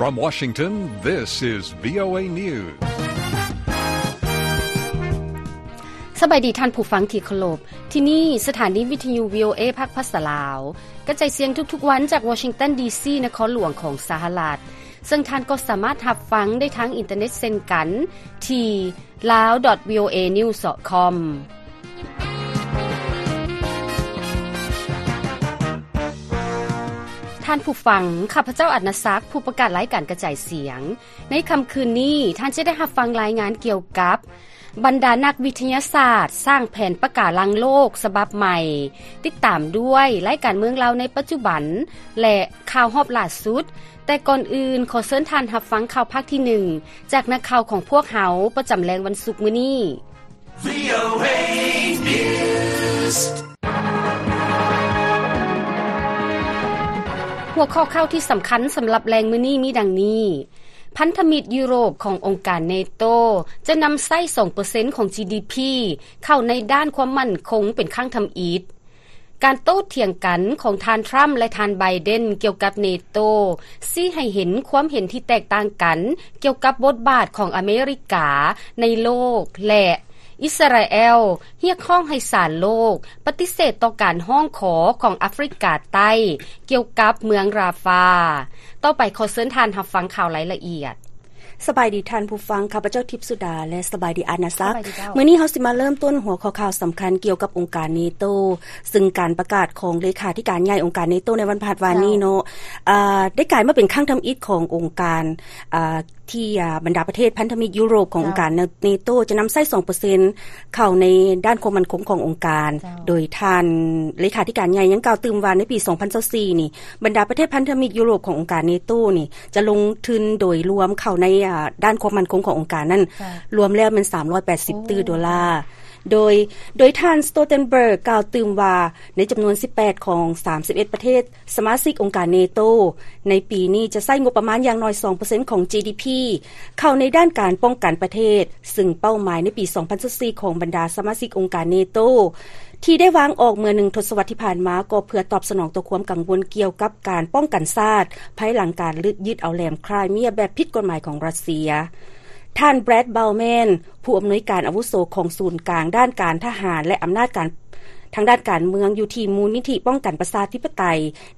From Washington, this is VOA News. ສະບາຍດີທ່ານຜູ້ຟັງທີ່ເຄົາລົບ. ທີ່ນີ້ສະຖານີວິທະຍຸ VOA ພາກພາສາລາວ ກະຈາຍສຽງທຸກໆວັນຈາກ Washington D C ນະຄອນຫຼວງຂອງສະຫະລັດ, ເຊິ່ງທ່ານກໍສາມາດຮັບຟັງໄດ້ທາງອິນເຕີເນັດເຊັ່ນກັນ ທີ່ lao dot voanews dot com. ທ່ານຜູ້ຟັງ, ຂ້າພະເຈົ້າ ອານາສັກ ຜູ້ປະກາດລາຍການກະຈາຍສຽງ. ໃນຄ່ຳຄືນນີ້, ທ່ານຈະໄດ້ຮັບຟັງລາຍງານກ່ຽວກັບ ບັນດານັກວິທະຍາສາດສ້າງແຜນປະກາລັງໂລກສະບັບໃໝ່, ຕິດຕາມດ້ວຍລາຍການເມືອງລາວໃນປັດຈຸບັນ ແລະ ຂ່າວຮອບຫຼ້າສຸດ. ແຕ່ກ່ອນອື່ນ, ຂໍເຊີນທ່ານຮັບຟັງຂ່າວພາກທີໜຶ່ງ ຈາກນັກຂ່າວຂອງພວກເຮົາປະຈຳແລງວັນສຸກມື້ນີ້. VOA News. ຫົວຂໍ້ຂ່າວທີ່ສຳຄັນສຳລັບແລງມື້ນີ້ມີດັ່ງນີ້: ພັນທະມິດຢູໂຣບຂອງອົງການເນໂຕ ຈະນຳໃຊ້ສອງເປີເຊັນຂອງ GDP ເຂົ້າໃນດ້ານຄວາມໝັ້ນຄົງເປັນຄັ້ງທຳອິດ. ການໂຕ້ຖຽງກັນຂອງທ່ານທຣຳ ແລະ ທ່ານໄບເດັນກ່ຽວກັບເນໂຕ ຊີ້ໃຫ້ເຫັນຄວາມເຫັນທີ່ແຕກຕ່າງກັນກ່ຽວກັບບົດບາດຂອງອາເມລິກາໃນໂລກ ແລະ ອິດສະຣາແອລຮຽກຮ້ອງໃຫ້ສານໂລກປະຕິເສດຕໍ່ການຮ້ອງຂໍຂອງອາຟຣິກາໃຕ້ກ່ຽວກັບເມືອງຣາຟາ. ຕໍ່ໄປຂໍເຊີນທ່ານຮັບຟັງຂ່າວລາຍລະອຽດ. ສະບາຍດີທ່ານຜູ້ຟັງ, ຂ້າພະເຈົ້າ ທິບສຸດາ ແລະ ສະບາຍດີ ອານາສັກ. ສະບາຍດີເຈົ້າ. ມື້ນີ້ເຮົາຊິມາເລີ່ມຕົ້ນຫົວຂໍ້ຂ່າວສຳຄັນກ່ຽວກັບອົງການເນໂຕ, ຊຶ່ງການປະກາດຂອງເລຂາທິການໃຫຍ່ອົງການເນໂຕໃນວັນພະຫັດວານນີ້ເນາະ, ເຈົ້າ. ອາ, ໄດ້ກາຍມາເປັນຄັ້ງທຳອິດຂອງອົງການ, ອາ, ທີ່, ອາ, ບັນດາປະເທດພັນທະມິດຢູໂຣບຂອງ ເຈົ້າ. ອົງການເນໂຕຈະນຳໃຊ້ສອງເປີເຊັນເຂົ້າໃນດ້ານຄວາມໝັ້ນຄົງຂອງອົງການ, ເຈົ້າ. ໂດຍທ່ານເລຂາທິການໃຫຍ່ຍັງກ່າວຕື່ມວ່າ ໃນປີສອງພັນຊາວສີ່ນີ້ ບັນດາປະເທດພັນທະມິດຢູໂຣບຂອງອົງການເນໂຕນີ້ ຈະລົງທຶນໂດຍລວມເຂົ້າໃນ, ອາ, ດ້ານຄວາມໝັ້ນຄົງຂອງອົງການນັ້ນ ເຈົ້າ. ລວມແລ້ວແມ່ນສາມຮ້ອຍແປດສິບ ໂອ້ ຕື້ໂດລາ. ໂດຍ, ໂດຍທ່ານ Stoltenberg ກ່າວຕື່ມວ່າ ໃນຈຳນວນສິບແປດຂອງສາມສິບເອັດປະເທດສະມາຊິກອົງການເນໂຕ ໃນປີນີ້ຈະໃຊ້ງົບປະມານຢ່າງໜ້ອຍສອງເປີເຊັນຂອງ GDP ເຂົ້າໃນດ້ານການປ້ອງກັນປະເທດ, ຊຶ່ງເປົ້າໝາຍໃນປີສອງພັນຊາວສີ່ຂອງບັນດາສະມາຊິກອົງການເນໂຕ ທີ່ໄດ້ວາງອອກເມື່ອໜຶ່ງທົດສະວັດທີ່ຜ່ານມາ ກໍເພື່ອຕອບສະໜອງຕໍ່ຄວາມກັງວົນກ່ຽວກັບການປ້ອງກັນຊາດ ພາຍຫຼັງການຍຶດເອົາແຫຼມຄຣາຍເມຍແບບຜິດກົດໝາຍຂອງຣັດເຊຍ. ທ່ານ Brad Bauman ຜູ້ອຳນວຍການອາວຸໂສຂອງສູນກາງດ້ານການທະຫານ ແລະ ອຳນາດການທາງດ້ານການເມືອງ ຢູ່ທີ່ມູນນິທິປ້ອງກັນປະຊາທິປະໄຕ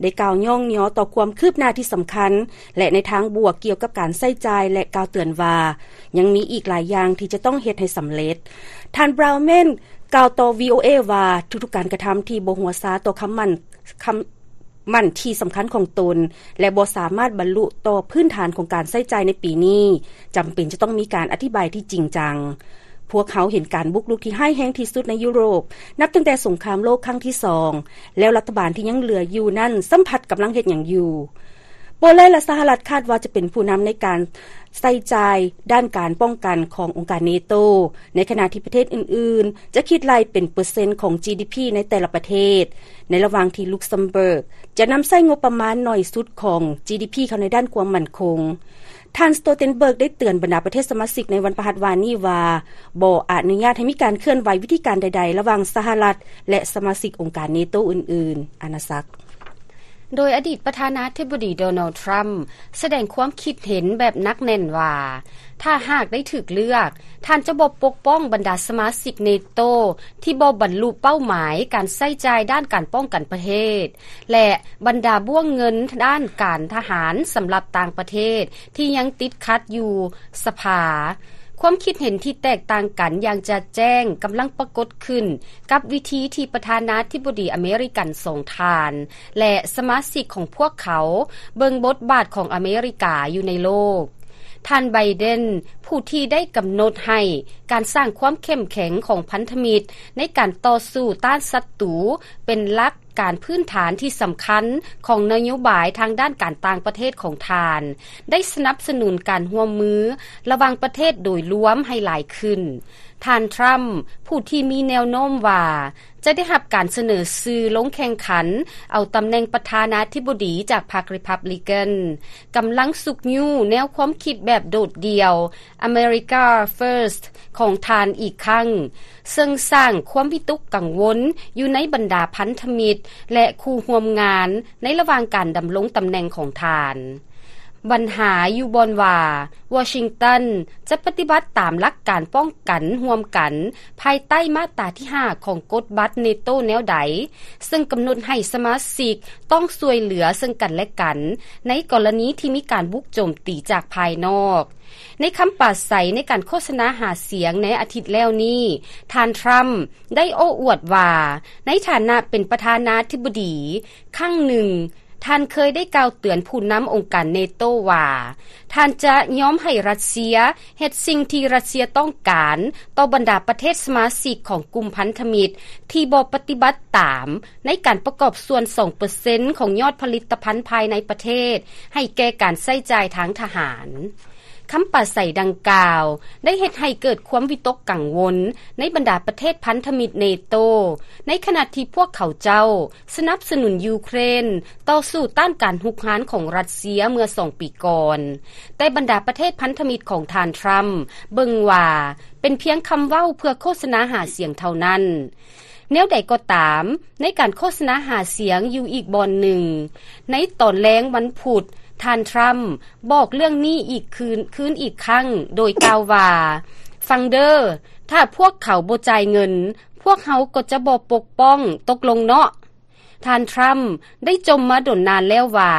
ໄດ້ກ່າວຍ້ອງຍໍຕໍ່ຄວາມຄືບໜ້າທີ່ສຳຄັນ ແລະ ໃນທາງບວກກ່ຽວກັບການໃຊ້ຈ່າຍ ແລະ ກ່າວເຕືອນວ່າ ຍັງມີອີກຫຼາຍຢ່າງທີ່ຈະຕ້ອງເຮັດໃຫ້ສຳເລັດ. ທ່ານ Bauman ກ່າວຕໍ່ VOA ວ່າ ທຸກໆການກະທຳທີ່ບໍ່ຫົວຊາຕໍ່ຄຳໝັ້ນ, ຄຳໝັ້ນທີ່ສຳຄັນຂອງຕົນ ແລະ ບໍ່ສາມາດບັນລຸຕໍ່ພື້ນຖານຂອງການໃຊ້ຈ່າຍໃນປີນີ້ ຈຳເປັນຈະຕ້ອງມີການອະທິບາຍທີ່ຈິງຈັງ. ພວກເຮົາເຫັນການບຸກລຸກທີ່ຮ້າຍແຮງທີ່ສຸດໃນຢູໂຣບ ນັບຕັ້ງແຕ່ສົງຄາມໂລກຄັ້ງທີສອງ ແລ້ວລັດຖະບານທີ່ຍັງເຫຼືອຢູ່ນັ້ນຊ້ຳພັດກຳລັງເຮັດຫຍັງຢູ່. ໂປແລນ ແລະ ສະຫະລັດຄາດວ່າຈະເປັນຜູ້ນຳໃນການໃຊ້ຈ່າຍດ້ານການປ້ອງກັນຂອງອົງການເນໂຕ, ໃນຂະນະທີ່ປະເທດອື່ນໆຈະຄິດໄລ່ເປັນເປີເຊັນຂອງ GDP ໃນແຕ່ລະປະເທດ, ໃນລະຫວ່າງທີ່ Luxembourg ຈະນຳໃຊ້ງົບປະມານໜ້ອຍສຸດຂອງ GDP ເຂົ້າໃນດ້ານຄວາມໝັ້ນຄົງ. ທ່ານ Stoltenberg ໄດ້ເຕືອນບັນດາປະເທດສະມາຊິກໃນວັນພະຫັດວານນີ້ວ່າ ບໍ່ອະນຸຍາດໃຫ້ມີການເຄື່ອນໄຫວວິທີການໃດໆ ລະຫວ່າງສະຫະລັດ ແລະ ສະມາຊິກອົງການເນໂຕອື່ນໆ. ອານາສັກ. ໂດຍອະດີດປະທານາທິບໍດີ ໂດນັລ ທຣຳ ສະແດງຄວາມຄິດເຫັນແບບໜັກແໜ້ນວ່າ ຖ້າຫາກໄດ້ຖືກເລືອກ, ທ່ານຈະບໍ່ປົກປ້ອງບັນດາສະມາຊິກເນໂຕທີ່ບໍ່ບັນລຸເປົ້າໝາຍການໃຊ້ຈ່າຍດ້ານການປ້ອງກັນປະເທດ ແລະ ບັນດາບ້ວງເງິນດ້ານການທະຫານສຳລັບຕ່າງປະເທດທີ່ຍັງຕິດຂັດຢູ່ສະພາ. ຄວາມຄິດເຫັນທີ່ແຕກຕ່າງກັນຢ່າງຈະແຈ້ງກຳລັງປາກົດຂຶ້ນກັບວິທີທີ່ປະທານາທິບໍດີອາເມລິກັນສອງທ່ານ ແລະ ສະມາຊິກຂອງພວກເຂົາເບິ່ງບົດບາດຂອງອາເມລິກາຢູ່ໃນໂລກ. ທ່ານ ໄບເດັນ ຜູ້ທີ່ໄດ້ກຳນົດໃຫ້ການສ້າງຄວາມເຂັ້ມແຂງຂອງພັນທະມິດໃນການຕໍ່ສູ້ຕ້ານສັດຕູເປັນຫຼັກການພື້ນຖານທີ່ສຳຄັນຂອງນະໂຍບາຍທາງດ້ານການຕ່າງປະເທດຂອງທ່ານ ໄດ້ສະໜັບສະໜູນການຮ່ວມມືລະຫວ່າງປະເທດໂດຍລວມໃຫ້ຫຼາຍຂຶ້ນ. ທ່ານ ທຣຳ ຜູ້ທີ່ມີແນວໂນ້ມວ່າຈະໄດ້ຮັບການສະເໜີຊື່ລົງແຂ່ງຂັນເອົາຕຳແໜ່ງປະທານາທິບໍດີຈາກພັກ Republican ກຳລັງຊຸກຍູ້ແນວຄວາມຄິດແບບໂດດດ່ຽວ America First ຂອງທ່ານອີກຄັ້ງ, ເຊິ່ງສ້າງຄວາມວິຕົກກັງວົນຢູ່ໃນບັນດາພັນທະມິດ ແລະ ຄູ່ຮ່ວມງານໃນລະຫວ່າງການດຳລົງຕຳແໜ່ງຂອງທ່ານ. ບັນຫາຢູ່ບ່ອນວ່າ ວໍຊິງຕັນຈະປະຕິບັດຕາມຫຼັກການປ້ອງກັນຮ່ວມກັນ ພາຍໃຕ້ມາດຕາທີຫ້າຂອງກົດບັດເນໂຕແນວໃດ, ເຊິ່ງກຳນົດໃຫ້ສະມາຊິກຕ້ອງຊ່ວຍເຫຼືອເຊິ່ງກັນແລະກັນ ໃນກໍລະນີທີ່ມີການບຸກໂຈມຕີຈາກພາຍນອກ. ໃນຄຳປາໄສໃນການໂຄສະນາຫາສຽງໃນອາທິດແລ້ວນີ້, ທ່ານທຣຳໄດ້ໂອ້ອວດວ່າ ໃນຖານະເປັນປະທານາທິບໍດີ, ຄັ້ງໜຶ່ງ, ທ່ານເຄີຍໄດ້ກ່າວເຕືອນຜູ້ນຳອົງການເນໂຕວ່າ ທ່ານຈະຍອມໃຫ້ຣັດເຊຍເຮັດສິ່ງທີ່ຣັດເຊຍຕ້ອງການຕໍ່ບັນດາປະເທດສະມາຊິກຂອງກຸ່ມພັນທະມິດທີ່ບໍ່ປະຕິບັດຕາມໃນການປະກອບສ່ວນສອງເປີເຊັນຂອງຍອດຜະລິດຕະພັນພາຍໃນປະເທດໃຫ້ແກ່ການໃຊ້ຈ່າຍທາງທະຫານ. ຄຳປາໄສດັ່ງກ່າວໄດ້ເຮັດໃຫ້ເກີດຄວາມວິຕົກກັງວົນໃນບັນດາປະເທດພັນທະມິດເນໂຕ, ໃນຂະນະທີ່ພວກເຂົາເຈົ້າສະໜັບສະໜູນຢູເຄຣນຕໍ່ສູ້ຕ້ານການຮຸກຮານຂອງຣັດເຊຍເມື່ອສອງປີກ່ອນ, ແຕ່ບັນດາປະເທດພັນທະມິດຂອງທ່ານທຣຳເບິ່ງວ່າເປັນພຽງຄຳເວົ້າເພື່ອໂຄສະນາຫາສຽງເທົ່ານັ້ນ. ແນວໃດກໍຕາມ, ໃນການໂຄສະນາຫາສຽງຢູ່ອີກບ່ອນໜຶ່ງ, ໃນຕອນແລງວັນພຸດ, ທ່ານທຣຳບອກເລື່ອງນີ້ອີກຄືນ, ຄືນອີກຄັ້ງ, ໂດຍກ່າວວ່າ, ຟັງເດີ, ຖ້າພວກເຂົາບໍ່ຈ່າຍເງິນ, ພວກເຮົາກໍຈະບໍ່ປົກປ້ອງ, ຕົກລົງເນາະ. ທ່ານທຣຳໄດ້ຈົ່ມມາດົນນານແລ້ວວ່າ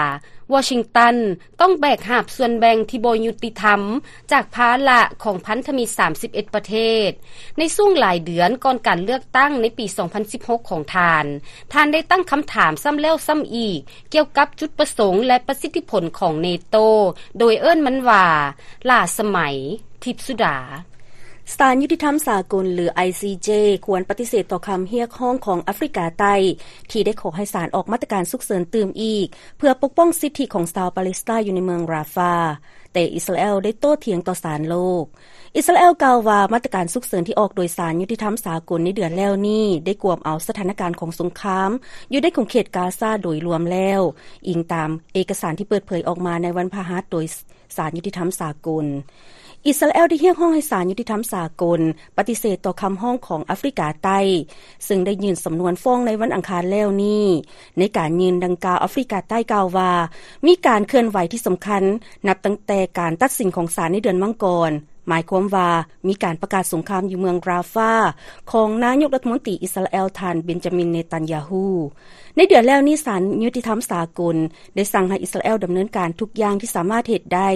ວໍຊິງຕັນຕ້ອງແບກຫາບສ່ວນແບ່ງທີ່ບໍ່ຍຸຕິທຳຈາກພາລະຂອງພັນທະມິດສາມສິບເອັດປະເທດ. ໃນຊ່ວງຫຼາຍເດືອນກ່ອນການເລືອກຕັ້ງໃນປີສອງພັນສິບຫົກຂອງທ່ານ, ທ່ານໄດ້ຕັ້ງຄຳຖາມຊ້ຳແລ້ວຊ້ຳອີກກ່ຽວກັບຈຸດປະສົງ ແລະ ປະສິດທິຜົນຂອງເນໂຕ, ໂດຍເອີ້ນມັນວ່າ ຫຼ້າສະໄໝ, ທິບສຸດາ. ສານຍຸຕິທຳສາກົນ ຫຼື ໄອຊີເຈ ຄວນປະຕິເສດຕໍ່ຄຳຮຽກຮ້ອງຂອງອາຟຣິກາໃຕ້ ທີ່ໄດ້ຂໍໃຫ້ສານອອກມາດຕະການສຸກເສີນຕື່ມອີກ ເພື່ອປົກປ້ອງສິດທິຂອງຊາວປາເລສໄຕຢູ່ໃນເມືອງຣາຟາ, ແຕ່ອິດສະຣາແອລໄດ້ໂຕ້ຖຽງຕໍ່ສານໂລກ. ອິດສະຣາແອລກ່າວວ່າ ມາດຕະການສຸກເສີນທີ່ອອກໂດຍສານຍຸຕິທຳສາກົນໃນເດືອນແລ້ວນີ້ ໄດ້ກວມເອົາສະຖານະການຂອງສົງຄາມຢູ່ໃນຂົງເຂດກາຊາໂດຍລວມແລ້ວ, ອີງຕາມເອກະສານທີ່ເປີດເຜີຍອອກມາໃນວັນພະຫັດໂດຍ ສານຍຸຕິທຳສາກົນ. ອິດສະຣາແອລໄດ້ຮຽກຮ້ອງໃຫ້ສານຍຸຕິທຳສາກົນປະຕິເສດຕໍ່ຄຳຮ້ອງຂອງອາຟຣິກາໃຕ້, ເຊິ່ງໄດ້ຍື່ນສຳນວນຟ້ອງໃນວັນອັງຄານແລ້ວນີ້. ໃນການຍື່ນດັ່ງກ່າວ, ອາຟຣິກາໃຕ້ກ່າວວ່າ ມີການເຄື່ອນໄຫວທີ່ສຳຄັນ ນັບຕັ້ງແຕ່ການຕັດສິນຂອງສານໃນເດືອນມັງກອນ, ໝາຍຄວາມວ່າ ມີການປະກາດສົງຄາມຢູ່ເມືອງຣາຟາ ຂອງນາຍົກລັດຖະມົນຕີອິດສະຣາແອລ ທ່ານ ເບັນຈາມິນ ເນຕັນຍາທູ. ໃນເດືອນແລ້ວນີ້, ສານຍຸຕິທຳສາກົນໄດ້ສັ່ງໃຫ້ອິດສະຣາແອລດຳເນີນການທຸກຢ່າງທີ່ສາມາດເຮັດໄດ້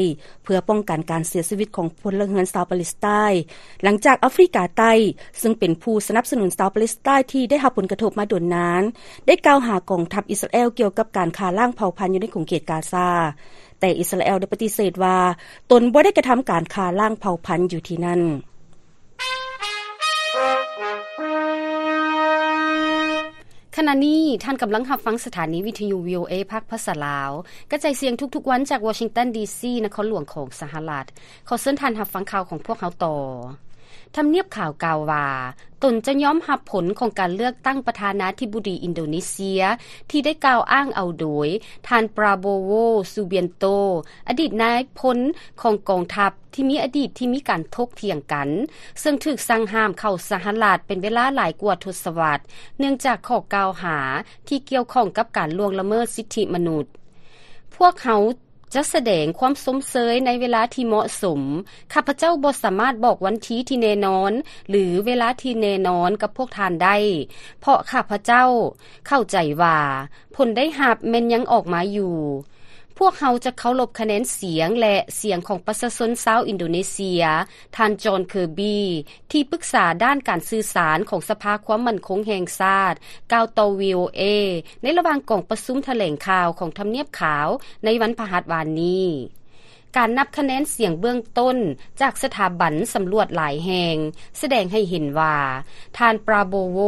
ເພື່ອປ້ອງກັນການເສຍຊີວິດຂອງພົນລະເຮືອນຊາວປາເລສໄຕ, ຫຼັງຈາກອາຟຣິກາໃຕ້ ເຊິ່ງເປັນຜູ້ສະໜັບສະໜູນຊາວປາເລສໄຕທີ່ໄດ້ຮັບຜົນກະທົບມາດົນນານ ໄດ້ກ່າວຫາກອງທັບອິດສະຣາແອລກ່ຽວກັບການຂ້າລ້າງເຜົ່າພັນຢູ່ໃນຂົງເຂດກາຊາ. ແຕ່ອິດສະຣາແອລໄດ້ປະຕິເສດວ່າ ຕົນບໍ່ໄດ້ກະທຳການຂ້າລ້າງເຜົ່າພັນຢູ່ທີ່ນັ້ນ. ຂະນະນີ້ທ່ານກຳລັງຮັບຟັງສະຖານີວິທະຍຸ ວີໂອເອ ພາກພາສາລາວ, ກະຈາຍສຽງທຸກໆວັນຈາກວໍຊິງຕັນ ດີຊີ ນະຄອນຫຼວງຂອງສະຫະລັດ. ຂໍເຊີນທ່ານຮັບຟັງຂ່າວຂອງພວກເຮົາຕໍ່. ທຳນຽບຂາວກ່າວວ່າ ຕົນຈະຍອມຮັບຜົນຂອງການເລືອກຕັ້ງປະທານາທິບໍດີອິນໂດເນເຊຍ ທີ່ໄດ້ກ່າວອ້າງເອົາໂດຍທ່ານ ປຣາໂບໂວ ຊູບຽນໂຕ ອະດີດນາຍພົນຂອງກອງທັບທີ່ມີອະດີດທີ່ມີການຖົກຖຽງກັນ, ເຊິ່ງຖືກສັ່ງຫ້າມເຂົ້າສະຫະລັດເປັນເວລາຫຼາຍກວ່າທົດສະວັດ ເນື່ອງຈາກຂໍ້ກ່າວຫາທີ່ກ່ຽວຂ້ອງກັບການລ່ວງລະເມີດສິດທິມະນຸດ. ພວກເຮົາ ຈະສະແດງຄວາມຊົມເຊີຍໃນເວລາທີ່ເໝາະສົມ. ຂ້າພະເຈົ້າບໍ່ສາມາດບອກວັນທີທີ່ແນ່ນອນ ຫຼື ເວລາທີ່ແນ່ນອນກັບພວກທ່ານໄດ້, ເພາະຂ້າພະເຈົ້າເຂົ້າໃຈວ່າຜົນໄດ້ຮັບແມ່ນຍັງອອກມາຢູ່. ພວກເຮົາຈະເຄົາລົບຄະແນນສຽງ ແລະ ສຽງຂອງປະຊາຊົນຊາວອິນໂດເນເຊຍ, ທ່ານ ຈອນ ເຄີບີ ທີ່ປຶກສາດ້ານການສື່ສານຂອງສະພາຄວາມໝັ້ນຄົງແຫ່ງຊາດ ກ່າວຕໍ່ ວີໂອເອ ໃນລະຫວ່າງກອງປະຊຸມຖະແຫຼງຂ່າວຂອງທຳນຽບຂາວໃນວັນພະຫັດວານນີ້. ການນັບຄະແນນສຽງເບື້ອງຕົ້ນຈາກສະຖາບັນສຳຫຼວດຫຼາຍແຫ່ງ ສະແດງໃຫ້ເຫັນວ່າ ທ່ານ ປຣາໂບໂວ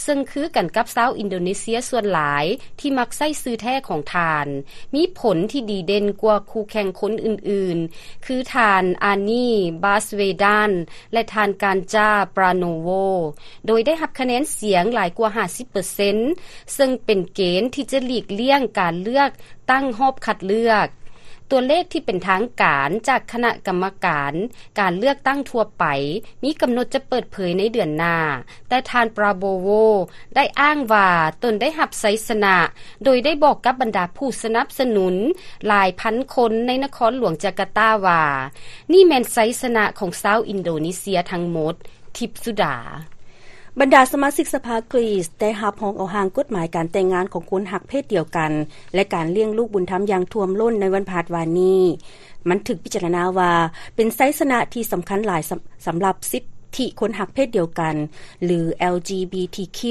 ເຊິ່ງຄືກັນກັບຊາວອິນໂດເນເຊຍສ່ວນຫຼາຍທີ່ມັກໃຊ້ຊື່ແທ້ຂອງທ່ານ, ມີຜົນທີ່ດີເດັ່ນກວ່າຄູ່ແຂ່ງຄົນອື່ນໆ ຄືທ່ານ ອານີ ບາສເວດານ ແລະ ທ່ານ ການຈາ ປຣາໂນໂວ ໂດຍໄດ້ຮັບຄະແນນສຽງຫຼາຍກວ່າຫ້າສິບເປີເຊັນ ເຊິ່ງເປັນເກນທີ່ຈະຫຼີກລ່ຽງການເລືອກຕັ້ງຮອບຄັດເລືອກ. ຕົວເລກທີ່ເປັນທາງການຈາກຄະນະກຳມະການການເລືອກຕັ້ງທົ່ວໄປ ມີກຳນົດຈະເປີດເຜີຍໃນເດືອນໜ້າ, ແຕ່ທ່ານ Prabowo ໄດ້ອ້າງວ່າຕົນໄດ້ຮັບໄຊຊະນະ, ໂດຍໄດ້ບອກກັບບັນດາຜູ້ສະໜັບສະໜູນຫຼາຍພັນຄົນໃນນະຄອນຫຼວງຈາກາຕາວ່າ ນີ້ແມ່ນໄຊຊະນະຂອງຊາວອິນໂດເນເຊຍທັງໝົດ. ທິບສຸດາ. ບັນດາສະມາຊິກສະພາກຣີສໄດ້ຮັບຮອງເອົາຮ່າງກົດໝາຍການແຕ່ງງານຂອງຄົນຮັກເພດດຽວກັນ ແລະ ການລ້ຽງລູກບຸນທຳຢ່າງຖ້ວມລົ້ນໃນວັນພະຫັດວານນີ້. ມັນຖືກພິຈາລະນາວ່າເປັນໄຊຊະນະທີ່ສຳຄັນຫຼາຍສຳ ສຳລັບສິດທິຄົນຮັກເພດດຽວກັນ ຫຼື LGBTQ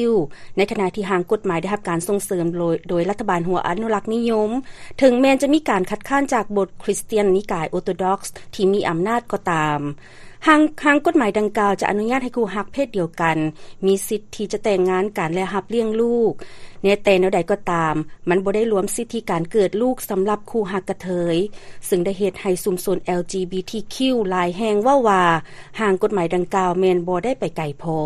ໃນຂະນະທີ່ຮ່າງກົດໝາຍໄດ້ຮັບການສົ່ງເສີມໂດຍ ໂດຍລັດຖະບານຫົວອະນຸລັກນິຍົມ, ເຖິງແມ່ນຈະມີການຄັດຄ້ານຈາກບົດຄຣິສຕຽນນິກາຍໂອໂຕດອກສ໌ທີ່ມີອຳນາດກໍຕາມ. ຮ່າງ ຮ່າງກົດໝາຍດັ່ງກ່າວຈະອະນຸຍາດໃຫ້ຄູ່ຮັກເພດດຽວກັນມີສິດທີ່ຈະແຕ່ງງານກັນ ແລະ ຮັບລ້ຽງລູກ. ແນ ແຕ່ແນວໃດກໍຕາມ, ມັນບໍ່ໄດ້ລວມສິດທິການເກີດລູກສຳລັບຄູ່ຮັກກະເທີຍ, ເຊິ່ງໄດ້ເຮັດໃຫ້ຊຸມຊົນ LGBTQ ຫຼາຍແຫ່ງເວົ້າວ່າ ຮ່າງກົດໝາຍດັ່ງກ່າວແມ່ນບໍ່ໄດ້ໄປໄກພໍ.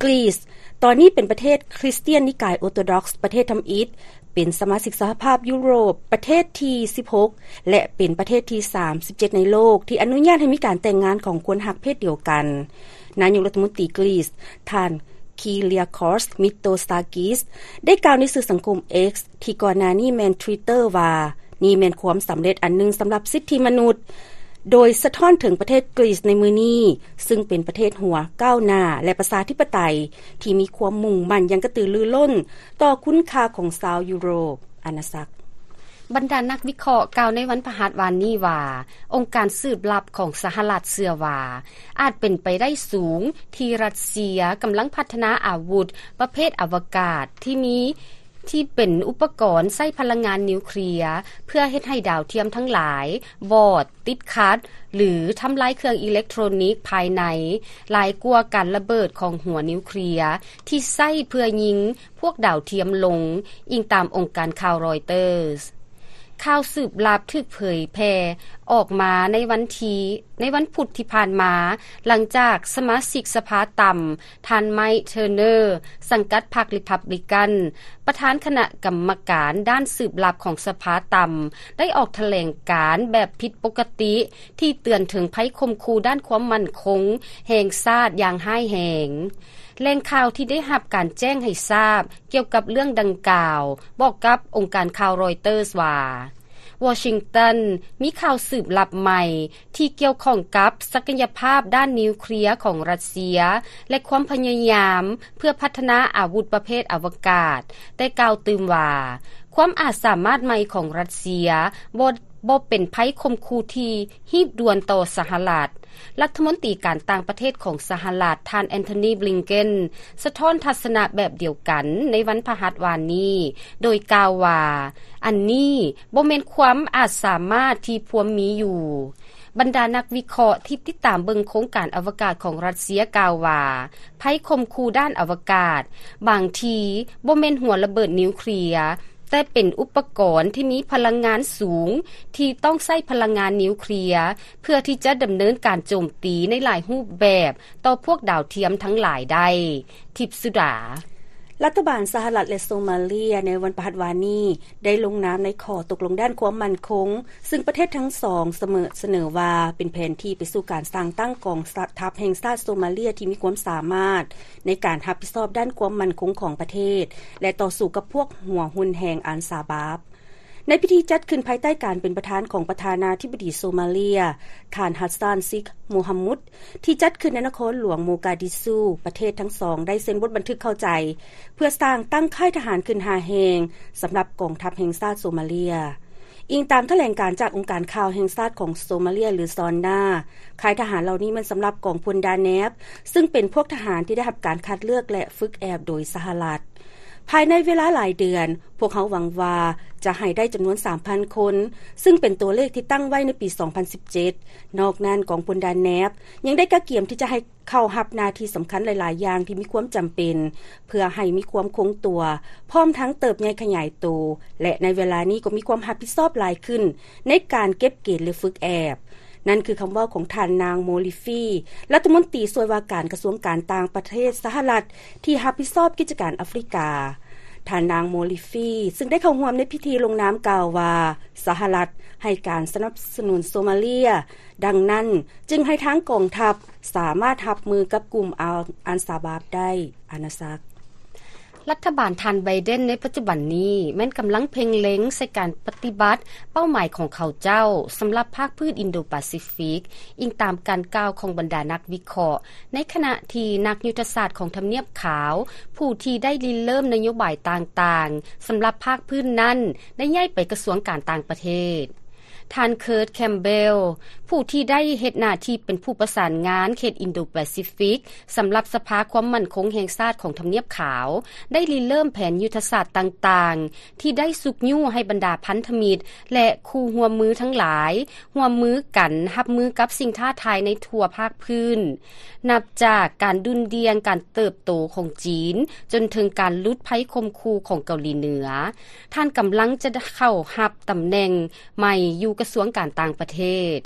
ກຣີສ ຕອນນີ້ເປັນປະເທດຄຣິສຕຽນນິກາຍໂອໂຕດອກສ໌ ປະເທດທຳອິດ, ເປັນສະມາຊິກສະຫະພາບຢູໂຣບປະເທດທີສິບຫົກ ແລະ ເປັນປະເທດທີສາມສິບເຈັດໃນໂລກທີ່ອະນຸຍາດໃຫ້ມີການແຕ່ງງານຂອງຄົນຮັກເພດດຽວກັນ. ນາຍົກລັດຖະມົນຕີກຣີສ ທ່ານ Kyriakos Mitsotakis ໄດ້ກ່າວໃນສື່ສັງຄົມ X ທີ່ກ່ອນໜ້ານີ້ແມ່ນ Twitter ວ່າ ນີ້ແມ່ນຄວາມສຳເລັດອັນໜຶ່ງສຳລັບສິດທິມະນຸດ, ໂດຍສະທ້ອນເຖິງປະເທດກຣີສໃນມື້ນີ້, ຊຶ່ງເປັນປະເທດຫົວກ້າວໜ້າ ແລະ ປະຊາທິປະໄຕ ທີ່ມີຄວາມມຸ່ງໝັ້ນຢ່າງກະຕືລືລົ້ນຕໍ່ຄຸນຄ່າຂອງຊາວຢູໂຣບອານາຈັກ. ບັນດານັກວິເຄາະກ່າວໃນວັນພະຫັດວານນີ້ວ່າ ອົງການສືບລັບຂອງສະຫະລັດເຊື່ອວ່າ ອາດເປັນໄປໄດ້ສູງທີ່ຣັດເຊຍກຳລັງພັດທະນາອາວຸດປະເພດອະວະກາດທີ່ມີ ທີ່ເປັນອຸປະກອນໃຊ້ພະລັງງານນິວເຄລຍ ເພື່ອເຮັດໃຫ້ດາວທຽມທັງຫຼາຍວອດ, ຕິດຂັດ ຫຼື ທຳລາຍເຄື່ອງອີເລັກໂທຣນິກພາຍໃນ ຫຼາຍກວ່າການລະເບີດຂອງຫົວນິວເຄລຍທີ່ໃຊ້ເພື່ອຍິງພວກດາວທຽມລົງ, ອີງຕາມອົງການຂ່າວຣອຍເຕີສ. ຂ່າວສືບລັບຖືກເຜີຍແຜ່ອອກມາໃນວັນທີ ໃນວັນພຸດທີ່ຜ່ານມາ, ຫຼັງຈາກສະມາຊິກສະພາຕ່ຳ ທ່ານ Mike Turner ສັງກັດພັກ Republican ປະທານຄະນະກຳມະການດ້ານສືບລັບຂອງສະພາຕ່ຳ ໄດ້ອອກຖະແຫຼງການແບບຜິດປົກກະຕິ ທີ່ເຕືອນເຖິງໄພຂົ່ມຂູ່ດ້ານຄວາມໝັ້ນຄົງແຫ່ງຊາດຢ່າງຮ້າຍແຮງ. ແຫຼ່ງຂ່າວທີ່ໄດ້ຮັບການແຈ້ງໃຫ້ຊາບກ່ຽວກັບເລື່ອງດັ່ງກ່າວ ບອກກັບອົງການຂ່າວຣອຍເຕີສວ່າ ວໍຊິງຕັນມີຂ່າວສືບລັບໃໝ່ ທີ່ກ່ຽວຂ້ອງກັບສັກກະຍະພາບດ້ານນິວເຄລຍຂອງຣັດເຊຍ ແລະ ຄວາມພະຍາຍາມເພື່ອພັດທະນາອາວຸດປະເພດອະວະກາດ, ແຕ່ກ່າວຕື່ມວ່າ ຄວາມອາດສາມາດໃໝ່ຂອງຣັດເຊຍບໍ່ ບໍ່ເປັນໄພຂົ່ມຂູ່ທີ່ຮີບດ່ວນຕໍ່ສະຫະລັດ. ລັດຖະມົນຕີການຕ່າງປະເທດຂອງສະຫະລັດ ທ່ານ Antony Blinken ສະທ້ອນທັດສະນະແບບດຽວກັນໃນວັນພະຫັດວານນີ້ ໂດຍກ່າວວ່າ ອັນນີ້ບໍ່ແມ່ນຄວາມອາດສາມາດທີ່ພວມມີຢູ່. ບັນດານັກວິເຄາະທີ່ຕິດຕາມເບິ່ງໂຄງການອະວະກາດຂອງຣັດເຊຍກ່າວວ່າ ໄພຂົ່ມຂູ່ດ້ານອະວະກາດບາງທີບໍ່ແມ່ນຫົວລະເບີດນິວເຄລຍ, ແຕ່ເປັນອຸປະກອນທີ່ມີພະລັງງານສູງທີ່ຕ້ອງໃຊ້ພະລັງງານນິວເຄລຍ ເພື່ອທີ່ຈະດຳເນີນການໂຈມຕີໃນຫຼາຍຮູບແບບຕໍ່ພວກດາວທຽມທັງຫຼາຍໄດ້. ທິບສຸດາ. ລັດຖະບານສະຫະລັດ ແລະ ໂຊມາເລຍໃນວັນພະຫັດວານນີ້ ໄດ້ລົງນາມໃນຂໍ້ຕົກລົງດ້ານຄວາມໝັ້ນຄົງ, ຊຶ່ງປະເທດທັງສອງສະເໝີ ສະເໜີວ່າເປັນແຜນທີ່ໄປສູ່ການສ້າງຕັ້ງກອງທັບແຫ່ງຊາດໂຊມາເລຍທີ່ມີຄວາມສາມາດໃນການຮັບຜິດຊອບດ້ານຄວາມໝັ້ນຄົງຂອງປະເທດ ແລະ ຕໍ່ສູ້ກັບພວກຫົວຮຸນແຮງອັນຊາບາບ. ໃນພິທີຈັດຂຶ້ນພາຍໃຕ້ການເປັນປະທານຂອງປະທານາທິບໍດີໂຊມາເລຍ ທ່ານ ຮັດຊານ ຊິກ ໂມຮາມຸດ ທີ່ຈັດຂຶ້ນໃນນະຄອນຫຼວງໂມກາດິຊູ, ປະເທດທັງສອງໄດ້ເຊັນບົດບັນທຶກເຂົ້າໃຈ ເພື່ອສ້າງຕັ້ງຄ້າຍທະຫານຂຶ້ນຫ້າແຫ່ງ ສຳລັບກອງທັບແຫ່ງຊາດໂຊມາເລຍ. ອີງຕາມຖະແຫຼງການຈາກອົງການຂ່າວແຫ່ງຊາດຂອງໂຊມາເລຍ ຫຼື ຊອນນາ, ຄ້າຍທະຫານເຫຼົ່ານີ້ແມ່ນສຳລັບກອງພົນດາແນບ, ຊຶ່ງເປັນພວກທະຫານທີ່ໄດ້ຮັບການຄັດເລືອກ ແລະ ຝຶກແອບໂດຍສະຫະລັດ. ພາຍໃນເວລາຫຼາຍເດືອນ, ພວກເຮົາຫວັງວ່າຈະໃຫ້ໄດ້ຈຳນວນສາມພັນຄົນ, ຊຶ່ງເປັນຕົວເລກທີ່ຕັ້ງໄວ້ໃນປີສອງພັນສິບເຈັດ. ນອກນັ້ນ, ກອງພົນດາແນບຍັງໄດ້ກະກຽມທີ່ຈະໃຫ້ເຂົ້າຮັບໜ້າທີ່ສຳຄັນຫຼາຍໆຢ່າງທີ່ມີຄວາມຈຳເປັນ, ເພື່ອໃຫ້ມີຄວາມຄົງຕົວ, ພ້ອມທັງເຕີບໃຫຍ່ຂະຫຍາຍໂຕ, ແລະ ໃນເວລານີ້ກໍມີຄວາມຮັບຜິດຊອບຫຼາຍຂຶ້ນໃນການເກັບເກນ ແລະ ຝຶກແອບ. ນັ້ນຄືຄຳເວົ້າຂອງທ່ານນາງ ໂມລິຟີ ລັດຖະມົນຕີຊ່ວຍວ່າການກະຊວງການຕ່າງປະເທດສະຫະລັດ ທີ່ຮັບຜິດຊອບກິດຈະການອາຟຣິກາ. ທ່ານນາງ ໂມລິຟີ ຊຶ່ງໄດ້ເຂົ້າຮ່ວມໃນພິທີລົງນາມ ກ່າວວ່າ ສະຫະລັດໃຫ້ການສະໜັບສະໜູນໂຊມາເລຍ, ດັ່ງນັ້ນຈຶ່ງໃຫ້ທາງກອງທັບສາມາດຮັບມືກັບກຸ່ມອາ ອັນຊາບາບໄດ້. ອານາສັກ. ລັດຖະບານທ່ານໄບເດັນໃນປັດຈຸບັນນີ້ ແມ່ນກຳລັງເພັ່ງເລັງໃສ່ການປະຕິບັດເປົ້າໝາຍຂອງເຂົາເຈົ້າສຳລັບພາກພື້ນອິນໂດປາຊີຟິກ, ອີງຕາມການກ່າວຂອງບັນດານັກວິເຄາະ, ໃນຂະນະທີ່ນັກຍຸດທະສາດຂອງທຳນຽບຂາວ ຜູ້ທີ່ໄດ້ລິເລີ່ມນະໂຍບາຍຕ່າງໆສຳລັບພາກພື້ນນັ້ນ ໄດ້ຍ້າຍໄປກະຊວງການຕ່າງປະເທດ. ທ່ານ Kurt Campbell ຜູ້ທີ່ໄດ້ເຮັດໜ້າທີ່ເປັນຜູ້ປະສານງານເຂດອິນໂດແປຊີຟິກ ສຳລັບສະພາຄວາມໝັ້ນຄົງແຫ່ງຊາດຂອງທຳນຽບຂາວ ໄດ້ລິເລີ່ມແຜນຍຸດທະສາດຕ່າງໆ ທີ່ໄດ້ຊຸກຍູ້ໃຫ້ບັນດາພັນທະມິດ ແລະ ຄູ່ຮ່ວມມືທັງຫຼາຍ ຮ່ວມມືກັນຮັບມືກັບສິ່ງທ້າທາຍໃນທົ່ວພາກພື້ນ, ນັບຈາກການດຸ່ນດ່ຽງການເຕີບໂຕຂອງຈີນ ຈົນເຖິງການຫຼຸດໄພຂົ່ມຂູ່ຂອງເກົາຫຼີເໜືອ. ທ່ານກຳລັງຈະເຂົ້າຮັບຕຳແໜ່ງໃໝ່ຢູ່ກະຊວງການຕ່າງປະເທດ.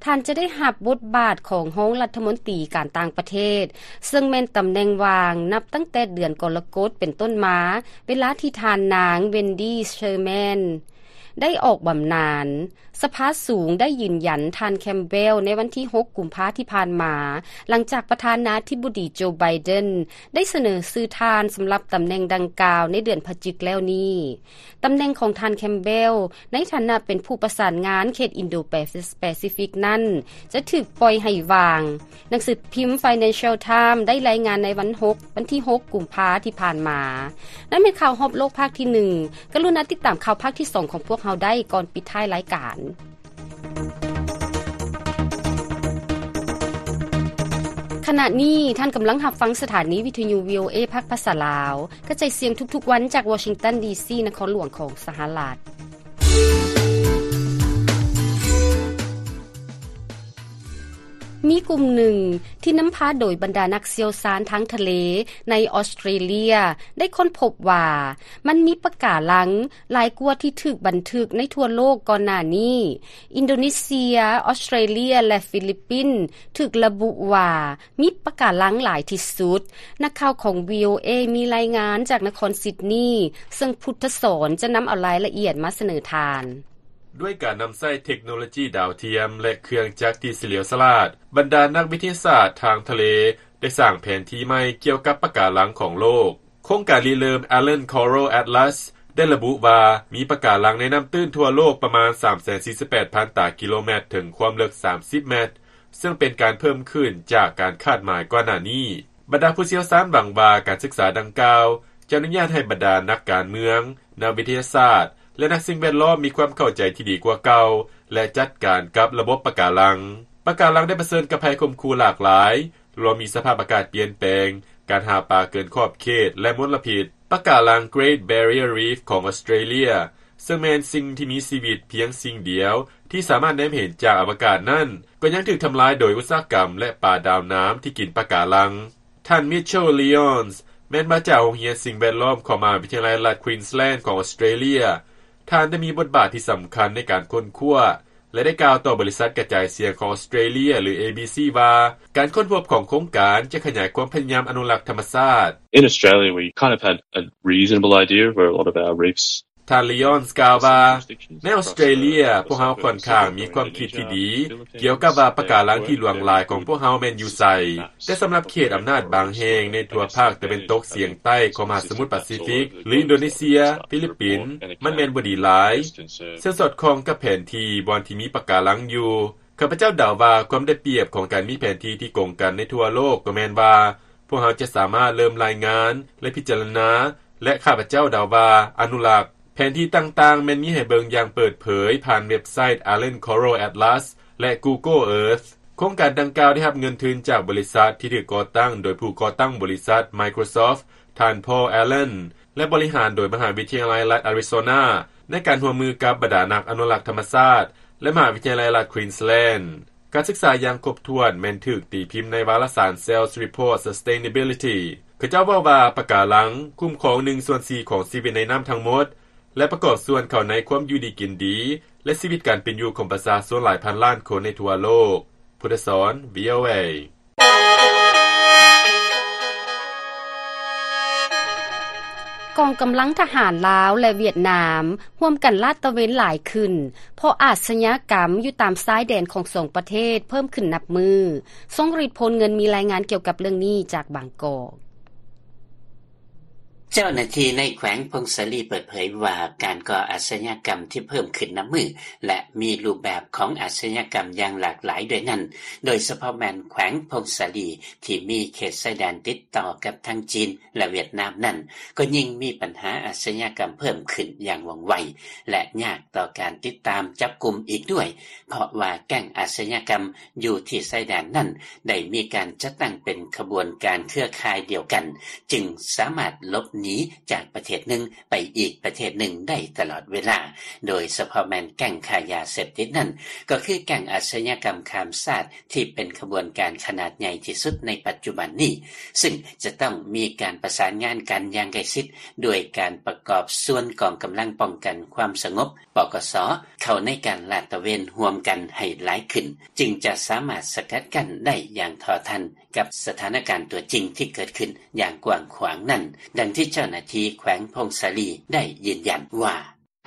ທ່ານຈະໄດ້ຮັບບົດບາດຂອງຮອງລັດຖະມົນຕີການຕ່າງປະເທດ, ເຊິ່ງແມ່ນຕຳແໜ່ງວ່າງນັບຕັ້ງແຕ່ເດືອນກໍລະກົດເປັນຕົ້ນມາ, ເວລາທີ່ທ່ານນາງ Wendy Sherman ໄດ້ອອກບຳນານ. ສະພາສູງໄດ້ຢືນຢັນທ່ານ Campbell ໃນວັນທີຫົກ ກຸມພາທີ່ຜ່ານມາ, ຫຼັງຈາກປະທານາທິບໍດີ ໂຈ ໄບເດັນ ໄດ້ສະເໜີຊື່ທ່ານສຳລັບຕຳແໜ່ງດັ່ງກ່າວໃນເດືອນພະຈິກແລ້ວນີ້. ຕຳແໜ່ງຂອງທ່ານ Campbell ໃນຖານະເປັນຜູ້ປະສານງານເຂດອິນໂດແປຊີຟິກນັ້ນ ຈະຖືກປ່ອຍໃຫ້ວ່າງ. ໜັງສືພິມ Financial Times ໄດ້ລາຍງານໃນວັນຫົກ ວັນທີຫົກ ກຸມພາທີ່ຜ່ານມາ. ນັ້ນແມ່ນຂ່າວຮອບໂລກພາກທີໜຶ່ງ. ກະລຸນາຕິດຕາມຂ່າວພາກທີສອງຂອງພວກເຮົາໄດ້ກ່ອນປິດທ້າຍລາຍການ. ຂະນະນີ້ທ່ານກຳລັງຮັບຟັງສະຖານີວິທະຍຸ ວີໂອເອ ພາກພາສາລາວ, ກະຈາຍສຽງທຸກໆວັນຈາກວໍຊິງຕັນ ດີຊີ ນະຄອນຫຼວງຂອງສະຫະລັດ. ມີກຸ່ມໜຶ່ງທີ່ນຳພາໂດຍບັນດານັກຊ່ຽວຊານທາງທະເລໃນອອສເຕຣເລຍ ໄດ້ຄົ້ນພົບວ່າ ມັນມີປະກາລັງຫຼາຍກວ່າທີ່ຖືກບັນທຶກໃນທົ່ວໂລກກ່ອນໜ້ານີ້. ອິນໂດເນເຊຍ, ອອສເຕຣເລຍ ແລະ ຟີລິບປິນ ຖືກລະບຸວ່າ ມີປະກາລັງຫຼາຍທີ່ສຸດ. ນັກຂ່າວຂອງ ວີໂອເອ ມີລາຍງານຈາກນະຄອນຊິດນີ, ເຊິ່ງພຸດທະສອນຈະນຳເອົາລາຍລະອຽດມາສະເໜີທ່ານ. ດ້ວຍການນຳໃຊ້ເທັກໂນໂລຈີດາວທຽມ ແລະ ເຄື່ອງຈັກທີ່ສະຫຼຽວສະຫຼາດ, ບັນດານັກວິທະຍາສາດທາງທະເລໄດ້ສ້າງແຜນທີ່ໃໝ່ກ່ຽວກັບປະກາລັງຂອງໂລກ. ໂຄງການລິເລີ່ມ Island Coral Atlas ໄດ້ລະບຸວ່າ ມີປະກາລັງໃນນ້ຳຕື້ນທົ່ວໂລກປະມານ ສາມແສນສີ່ສິບແປດພັນ ຕາກິໂລແມັດ ເຖິງຄວາມເລິກ ສາມສິບແມັດ, ເຊິ່ງເປັນການເພີ່ມຂຶ້ນຈາກການຄາດໝາຍກ່ອນໜ້ານີ້. ບັນດາຜູ້ຊ່ຽວຊານຫວັງວ່າການສຶກສາດັ່ງກ່າວຈະອະນຸຍາດໃຫ້ບັນດານັກການເມືອງ, ນັກວິທະຍາສາດ ແລະ ນັກສິ່ງແວດລ້ອມມີຄວາມເຂົ້າໃຈທີ່ດີກວ່າເກົ່າ ແລະ ຈັດການກັບລະບົບປະກາລັງ. ປະກາລັງໄດ້ປະເຊີນກັບໄພຂົ່ມຂູ່ຫຼາກຫຼາຍ, ລວມມີສະພາບອາກາດປ່ຽນແປງ, ການຫາປາເກີນຂອບເຂດ ແລະ ມົນລະພິດ. ປະກາລັງ Great Barrier Reef ຂອງອອສເຕຣເລຍ ເຊິ່ງແມ່ນສິ່ງທີ່ມີຊີວິດພຽງສິ່ງດຽວທີ່ສາມາດແນມເຫັນຈາກອະວະກາດນັ້ນ ກໍຍັງຖືກທຳລາຍໂດຍອຸດສາຫະກຳ ແລະ ປາດາວນ້ຳທີ່ກິນປະກາລັງ. ທ່ານ Mitchell Lyons ແມ່ນມາຈາກໂຮງຮຽນສິ່ງແວດລ້ອມຂອງມະຫາວິທະຍາໄລລັດ Queensland ຂອງອອສເຕຣເລຍ. ທ່ານໄດ້ມີບົດບາດທີ່ສຳຄັນໃນການຄົ້ນຄວ້າ ແລະ ໄດ້ກ່າວຕໍ່ບໍລິສັດກະຈາຍສຽງຂອງອອສເຕຣເລຍ ຫຼື ເອບີຊີ ວ່າ ການຄົ້ນພົບຂອງໂຄງການຈະຂະຫຍາຍຄວາມພະຍາຍາມອະນຸລັກທຳມະຊາດ. In Australia, we kind of had a reasonable idea of where a lot of our reefs ທ່ານ Lyons ກ່າວວ່າ ໃນອອສເຕຣເລຍ ພວກເຮົາຂ້ອນຂ້າງມີຄວາມຄິດທີ່ດີກ່ຽວກັບວ່າປະກາລັງທີ່ຫຼວງຫຼາຍຂອງພວກເຮົາແມ່ນຢູ່ໃສ, ແຕ່ສຳລັບເຂດອຳນາດບາງແຫ່ງໃນທົ່ວພາກຕາເວັນຕົກສຽງໃຕ້ຂອງມະຫາສະໝຸດປາຊີຟິກ ຫຼື ອິນໂດເນເຊຍ, ຟີລິບປິນ, ມັນແມ່ນບໍ່ດີຫຼາຍ, ເຊິ່ງສອດຄ່ອງກັບແຜນທີ່ບ່ອນທີ່ມີປະກາລັງຢູ່. ຂ້າພະເຈົ້າເດົາວ່າຄວາມໄດ້ປຽບຂອງການມີແຜນທີ່ທີ່ກົງກັນໃນທົ່ວໂລກກໍແມ່ນວ່າ ພວກເຮົາຈະສາມາດເລີ່ມລາຍງານ ແລະ ພິຈາລະນາ ແລະ ຂ້າພະເຈົ້າເດົາວ່າອະນຸລັກ. ແຜນທີ່ຕ່າງໆແມ່ນມີໃຫ້ເບິ່ງຢ່າງເປີດເຜີຍຜ່ານເວັບໄຊ Island Coral Atlas ແລະ Google Earth. ໂຄງການດັ່ງກ່າວໄດ້ຮັບເງິນທຶນຈາກບໍລິສັດທີ່ຖືກກໍ່ຕັ້ງໂດຍຜູ້ກໍ່ຕັ້ງບໍລິສັດ Microsoft ທ່ານ Paul Allen ແລະ ບໍລິຫານໂດຍມະຫາວິທະຍາໄລລັດ Arizona ໃນການຮ່ວມມືກັບບັນດານັກອະນຸລັກທຳມະຊາດ ແລະ ມະຫາວິທະຍາໄລລັດ Queensland. ການສຶກສາຢ່າງຄົບຖ້ວນແມ່ນຖືກຕີພິມໃນວາລະສານ Cell Reports Sustainability. ເຂົາເຈົ້າເວົ້າວ່າປະກາລັງຄຸ້ມຄອງໜຶ່ງສ່ວນສີ່ຂອງຊີວິດໃນນ້ຳທັງໝົດ ແລະ ປະກອບສ່ວນເຂົ້າໃນຄວາມຢູ່ດີກິນດີ ແລະ ຊີວິດການເປັນຢູ່ຂອງປະຊາຊົນຫຼາຍພັນລ້ານຄົນໃນທົ່ວໂລກ. ພຸດທະສອນ ວີໂອເອ. ກອງກຳລັງທະຫານລາວ ແລະ ຫວຽດນາມ ຮ່ວມກັນລາດຕະເວນຫຼາຍຂຶ້ນ ເພາະອາຊະຍາກຳຢູ່ຕາມຊາຍແດນຂອງສອງປະເທດເພີ່ມຂຶ້ນນັບມື້. ຊົງລິດ ໂພນເງິນ ມີລາຍງານກ່ຽວກັບເລື່ອງນີ້ຈາກບາງກອກ. ເຈົ້າໜ້າທີ່ໃນແຂວງຜົ້ງສາລີເປີດເຜີຍວ່າ ການກໍ່ອາຊະຍາກຳທີ່ເພີ່ມຂຶ້ນນັບມື້ ແລະ ມີຮູບແບບຂອງອາຊະຍາກຳຢ່າງຫຼາກຫຼາຍດ້ວຍນັ້ນ, ໂດຍສະເພາະແມ່ນແຂວງຜົ້ງສາລີ ທີ່ມີເຂດຊາຍແດນຕິດຕໍ່ກັບທັງຈີນ ແລະ ຫວຽດນາມນັ້ນ ກໍຍິ່ງມີບັນຫາອາຊະຍາກຳເພີ່ມຂຶ້ນຢ່າງວ່ອງໄວ ແລະ ຍາກຕໍ່ການຕິດຕາມຈັບກຸມອີກດ້ວຍ, ເພາະວ່າແກ້ງອາຊະຍາກຳຢູ່ທີ່ຊາຍແດນນັ້ນ ໄດ້ມີການຈັດຕັ້ງເປັນຂະບວນການເຄືອຂ່າຍດຽວກັນ, ຈຶ່ງສາມາດຫຼົບໜີຈາກປະເທດໜຶ່ງໄປອີກປະເທດໜຶ່ງໄດ້ຕະຫຼອດເວລາ, ໂດຍສະເພາະແມ່ນແກ້ງຄ້າຢາເສບຕິດນັ້ນ ກໍຄືແກ້ງອາຊະຍາກຳຂ້າມຊາດ ທີ່ເປັນຂະບວນການຂະໜາດໃຫຍ່ທີ່ສຸດໃນປັດຈຸບັນນີ້, ຊຶ່ງຈະຕ້ອງມີການປະສານງານກັນຢ່າງໃກ້ຊິດ ດ້ວຍການປະກອບສ່ວນກອງກຳລັງປ້ອງກັນຄວາມສະຫງົບ ປກສ ເຂົ້າໃນການລາດຕະເວນຮ່ວມກັນໃຫ້ຫຼາຍຂຶ້ນ, ຈຶ່ງຈະສາມາດສະກັດກັ້ນໄດ້ຢ່າງທໍ່ທັນກັບສະຖານະການຕົວຈິງທີ່ເກີດຂຶ້ນຢ່າງກວ້າງຂວາງນັ້ນ, ດັ່ງທີ່ເຈົ້າໜ້າທີ່ແຂວງຜົ້ງສາລີໄດ້ຢືນຢັນວ່າ: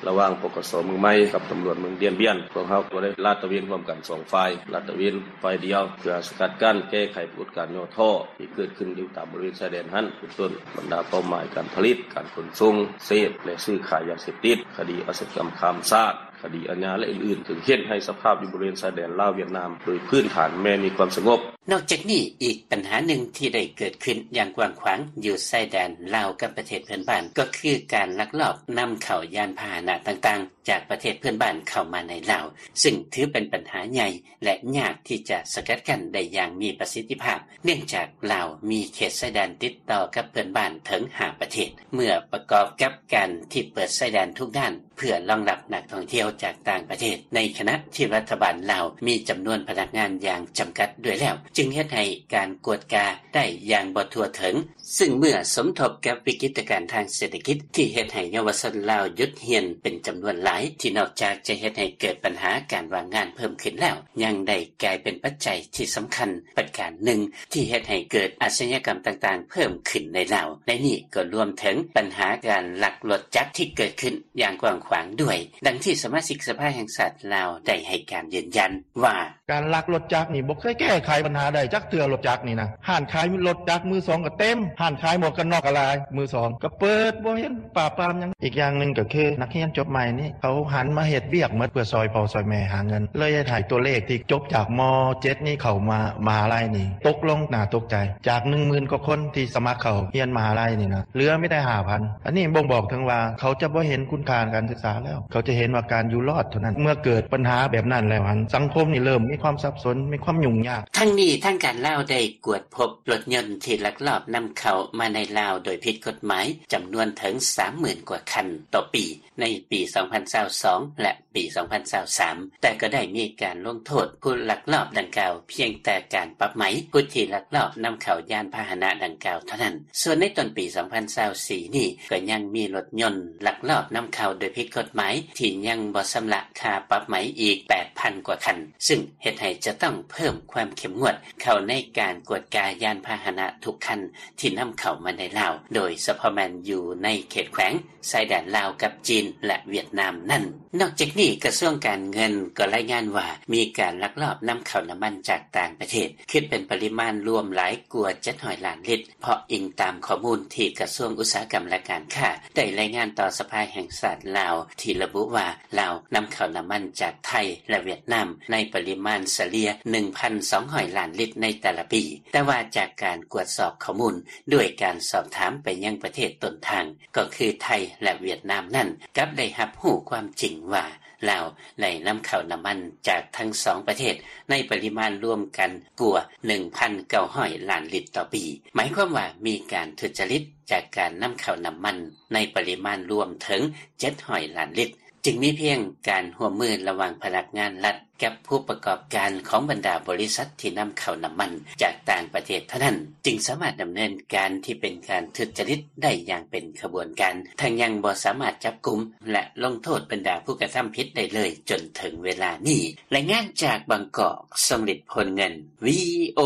ລະຫວ່າງ ປກສ ເມືອງໃໝ່ກັບຕຳຫຼວດເມືອງດຽນບຽນ, ພວກເຮົາກໍໄດ້ລາດຕະເວນຮ່ວມກັນສອງຝ່າຍ, ລາດຕະເວນຝ່າຍດຽວ ເພື່ອສະກັດກັ້ນແກ້ໄຂປາກົດການຫຍໍ້ທໍ້ທີ່ເກີດຂຶ້ນຢູ່ຕາມບໍລິເວນຊາຍແດນຫັ້ນ, ເປັນຕົ້ນບັນດາເປົ້າໝາຍການຜະລິດ, ການຂົນສົ່ງ, ເສບ ແລະ ຊື້ຂາຍຢາເສບຕິດ, ຄະດີອາຊະຍາກຳຂ້າມຊາດ, ຄະດີອາຍາ ແລະ ອື່ນໆ, ເຊິ່ງເຮັດໃຫ້ສະພາບຢູ່ບໍລິເວນຊາຍແດນລາວ-ຫວຽດນາມ ໂດຍພື້ນຖານແມ່ນມີຄວາມສະຫງົບ. ນອກຈາກນີ້, ອີກບັນຫາໜຶ່ງທີ່ໄດ້ເກີດຂຶ້ນຢ່າງກວ້າງຂວາງຢູ່ຊາຍແດນລາວກັບປະເທດເພື່ອນບ້ານ ກໍຄືການລັກລອບນຳເຂົ້າຍານພາຫະນະຕ່າງໆ ຈາກປະເທດເພື່ອນບ້ານເຂົ້າມາໃນລາວ, ຊຶ່ງຖືເປັນບັນຫາໃຫຍ່ ແລະ ຍາກທີ່ຈະສະກັດກັ້ນໄດ້ຢ່າງມີປະສິດທິພາບ, ເນື່ອງຈາກລາວມີເຂດຊາຍແດນຕິດຕໍ່ກັບເພື່ອນບ້ານເຖິງຫ້າປະເທດ. ເມື່ອປະກອບກັບການທີ່ເປີດຊາຍແດນທຸກດ້ານ ເພື່ອລອງຮັບນັກທ່ອງທ່ຽວຈາກຕ່າງປະເທດ, ໃນຂະນະທີ່ລັດຖະບານລາວມີຈຳນວນພະນັກງານຢ່າງຈຳກັດດ້ວຍແລ້ວ, ຈຶ່ງເຮັດໃຫ້ການກວດກາໄດ້ຢ່າງບໍ່ທົ່ວເຖິງ, ຊຶ່ງເມື່ອສົມທົບກັບວິກິດຕະການທາງເສດຖະກິດທີ່ເຮັດໃຫ້ເຍົາວະຊົນລາວຢຸດຮຽນເປັນຈຳນວນຫຼາຍ, ທີ່ນອກຈາກຈະເຮັດໃຫ້ເກີດບັນຫາການວ່າງງານເພີ່ມຂຶ້ນແລ້ວ, ຍັງໄດ້ກາຍເປັນປັດໄຈທີ່ສຳຄັນປະການໜຶ່ງ ທີ່ເຮັດໃຫ້ເກີດອາຊະຍາກຳຕ່າງໆເພີ່ມຂຶ້ນໃນລາວ. ໃນນີ້ກໍລວມເຖິງບັນຫາການລັກລົດຈັກທີ່ເກີດຂຶ້ນຢ່າງກວ້າງຂວາງດ້ວຍ, ດັ່ງທີ່ສະມາຊິກສະພາແຫ່ງຊາດລາວໄດ້ໃຫ້ການຢືນຢັນວ່າ: ການລັກລົດຈັກນີ້ບໍ່ເຄີຍແກ້ໄຂບັນຫາໄດ້ຈັກເທື່ອ, ລົດຈັກນີ້ນະ. ຮ້ານຂາຍລົດຈັກມືສອງກໍເຕັມ, ຮ້ານຂາຍໝວກກັນນັອກກໍຫຼາຍ, ມືສອງກໍເປີດ, ບໍ່ເຫັນປາບປາມຫຍັງ. ອີກຢ່າງໜຶ່ງກໍຄືນັກຮຽນຈົບໃໝ່ນີ້ ເຂົາຫັນມາເຮັດວຽກໝົດເພື່ອຊ່ອຍພໍ່ຊ່ອຍແມ່ຫາເງິນ, ເລີຍເຮັດໃຫ້ຕົວເລກທີ່ຈົບຈາກ ມ.ເຈັດ ນີ້ເຂົ້າມາມະຫາໄລນີ້ຕົກລົງໜ້າຕົກໃຈ. ຈາກໜຶ່ງໝື່ນກວ່າຄົນທີ່ສະໝັກເຂົ້າຮຽນມະຫາໄລນີ້ນະ, ເຫຼືອມີແຕ່ຫ້າພັນ. ອັນນີ້ບົ່ງບອກເຖິງວ່າເຂົາຈະບໍ່ເຫັນຄຸນຄ່າການສຶກສາແລ້ວ, ເຂົາຈະເຫັນວ່າການຢູ່ລອດເທົ່ານັ້ນ. ເມື່ອເກີດບັນຫາແບບນັ້ນແລ້ວຫັ້ນ, ສັງຄົມນີ້ເລີ່ມມີຄວາມສັບສົນ, ມີຄວາມຫຍຸ້ງຍາກ. ທັງນີ້, ທາງການລາວໄດ້ກວດພົບລົດຍົນທີ່ລັກລອບນຳເຂົ້າມາໃນລາວໂດຍຜິດກົດໝາຍ ຈຳນວນເຖິງສາມໝື່ນກວ່າຄັນຕໍ່ປີ ໃນປີສອງພັນຊາວສອງ ແລະ ປີສອງພັນຊາວສາມ, ແຕ່ກໍໄດ້ມີການລົງໂທດຜູ້ລັກລອບດັ່ງກ່າວພຽງແຕ່ການປັບໃໝຜູ້ທີ່ລັກລອບນຳເຂົ້າຍານພາຫະນະດັ່ງກ່າວເທົ່ານັ້ນ. ສ່ວນໃນຕົ້ນປີສອງພັນຊາວສີ່ນີ້ ກໍຍັງມີລົດຍົນລັກລອບນຳເຂົ້າໂດຍຜິດກົດໝາຍທີ່ຍັງບໍ່ຊຳລະຄ່າປັບໃໝອີກແປດພັນກວ່າຄັນ, ຊຶ່ງເຮັດໃຫ້ຈະຕ້ອງເພີ່ມຄວາມເຂັ້ມງວດເຂົ້າໃນການກວດກາຍານພາຫະນະທຸກຄັນທີ່ນຳເຂົ້າມາໃນລາວ, ໂດຍສະເພາະແມ່ນຢູ່ໃນເຂດແຂວງ ຊາຍແດນລາວກັບຈີນ ແລະ ຫວຽດນາມນັ້ນ. ນອກຈາກນີ້, ກະຊວງການເງິນກໍລາຍງານວ່າ ມີການລັກລອບນຳເຂົ້ານ້ຳມັນຈາກຕ່າງປະເທດ ຄິດເປັນປະລິມານລວມຫຼາຍກວ່າເຈັດຮ້ອຍລ້ານລິດ, ເພາະອີງຕາມຂໍ້ມູນທີ່ກະຊວງອຸດສາຫະກຳ ແລະ ການຄ້າ ໄດ້ລາຍງານຕໍ່ສະພາແຫ່ງຊາດລາວ ທີ່ລະບຸວ່າ ລາວນຳເຂົ້ານ້ຳມັນຈາກໄທ ແລະ ຫວຽດນາມໃນປະລິມານສະເລ່ຍໜຶ່ງພັນສອງຮ້ອຍລ້ານລິດໃນແຕ່ລະປີ, ແຕ່ວ່າຈາກການກວດສອບຂໍ້ມູນ ດ້ວຍການສອບຖາມໄປຍັງປະເທດຕົ້ນທາງ ກໍຄືໄທ ແລະ ຫວຽດນາມນັ້ນ ກັບໄດ້ຮັບຮູ້ຄວາມຈິງວ່າ ລາວໄດ້ນຳເຂົ້ານ້ຳມັນຈາກທັງສອງປະເທດໃນປະລິມານລວມກັນກວ່າໜຶ່ງພັນເກົ້າຮ້ອຍລ້ານລິດຕໍ່ປີ. ໝາຍຄວາມວ່າມີການທຸດຈະລິດຈາກການນຳເຂົ້ານ້ຳມັນໃນປະລິມານລວມເຖິງເຈັດຮ້ອຍລ້ານລິດ, ຈຶ່ງມີພຽງການຮ່ວມມືລະຫວ່າງພະນັກງານລັດ ກັບຜູ້ປະກອບການຂອງບັນດາບໍລິສັດທີ່ນຳເຂົ້ານ້ຳມັນຈາກຕ່າງປະເທດເທົ່ານັ້ນ ຈຶ່ງສາມາດດຳເນີນການທີ່ເປັນການທຸດຈະລິດໄດ້ຢ່າງເປັນຂະບວນການ, ທັງຍັງບໍ່ສາມາດຈັບກຸມ ແລະ ລົງໂທດບັນດາຜູ້ກະທຳຜິດໄດ້ເລີຍຈົນເຖິງເວລານີ້. ລາຍງານຈາກບາງກອກ, ຊົງລິດ ໂພນເງິນ, ວີໂອ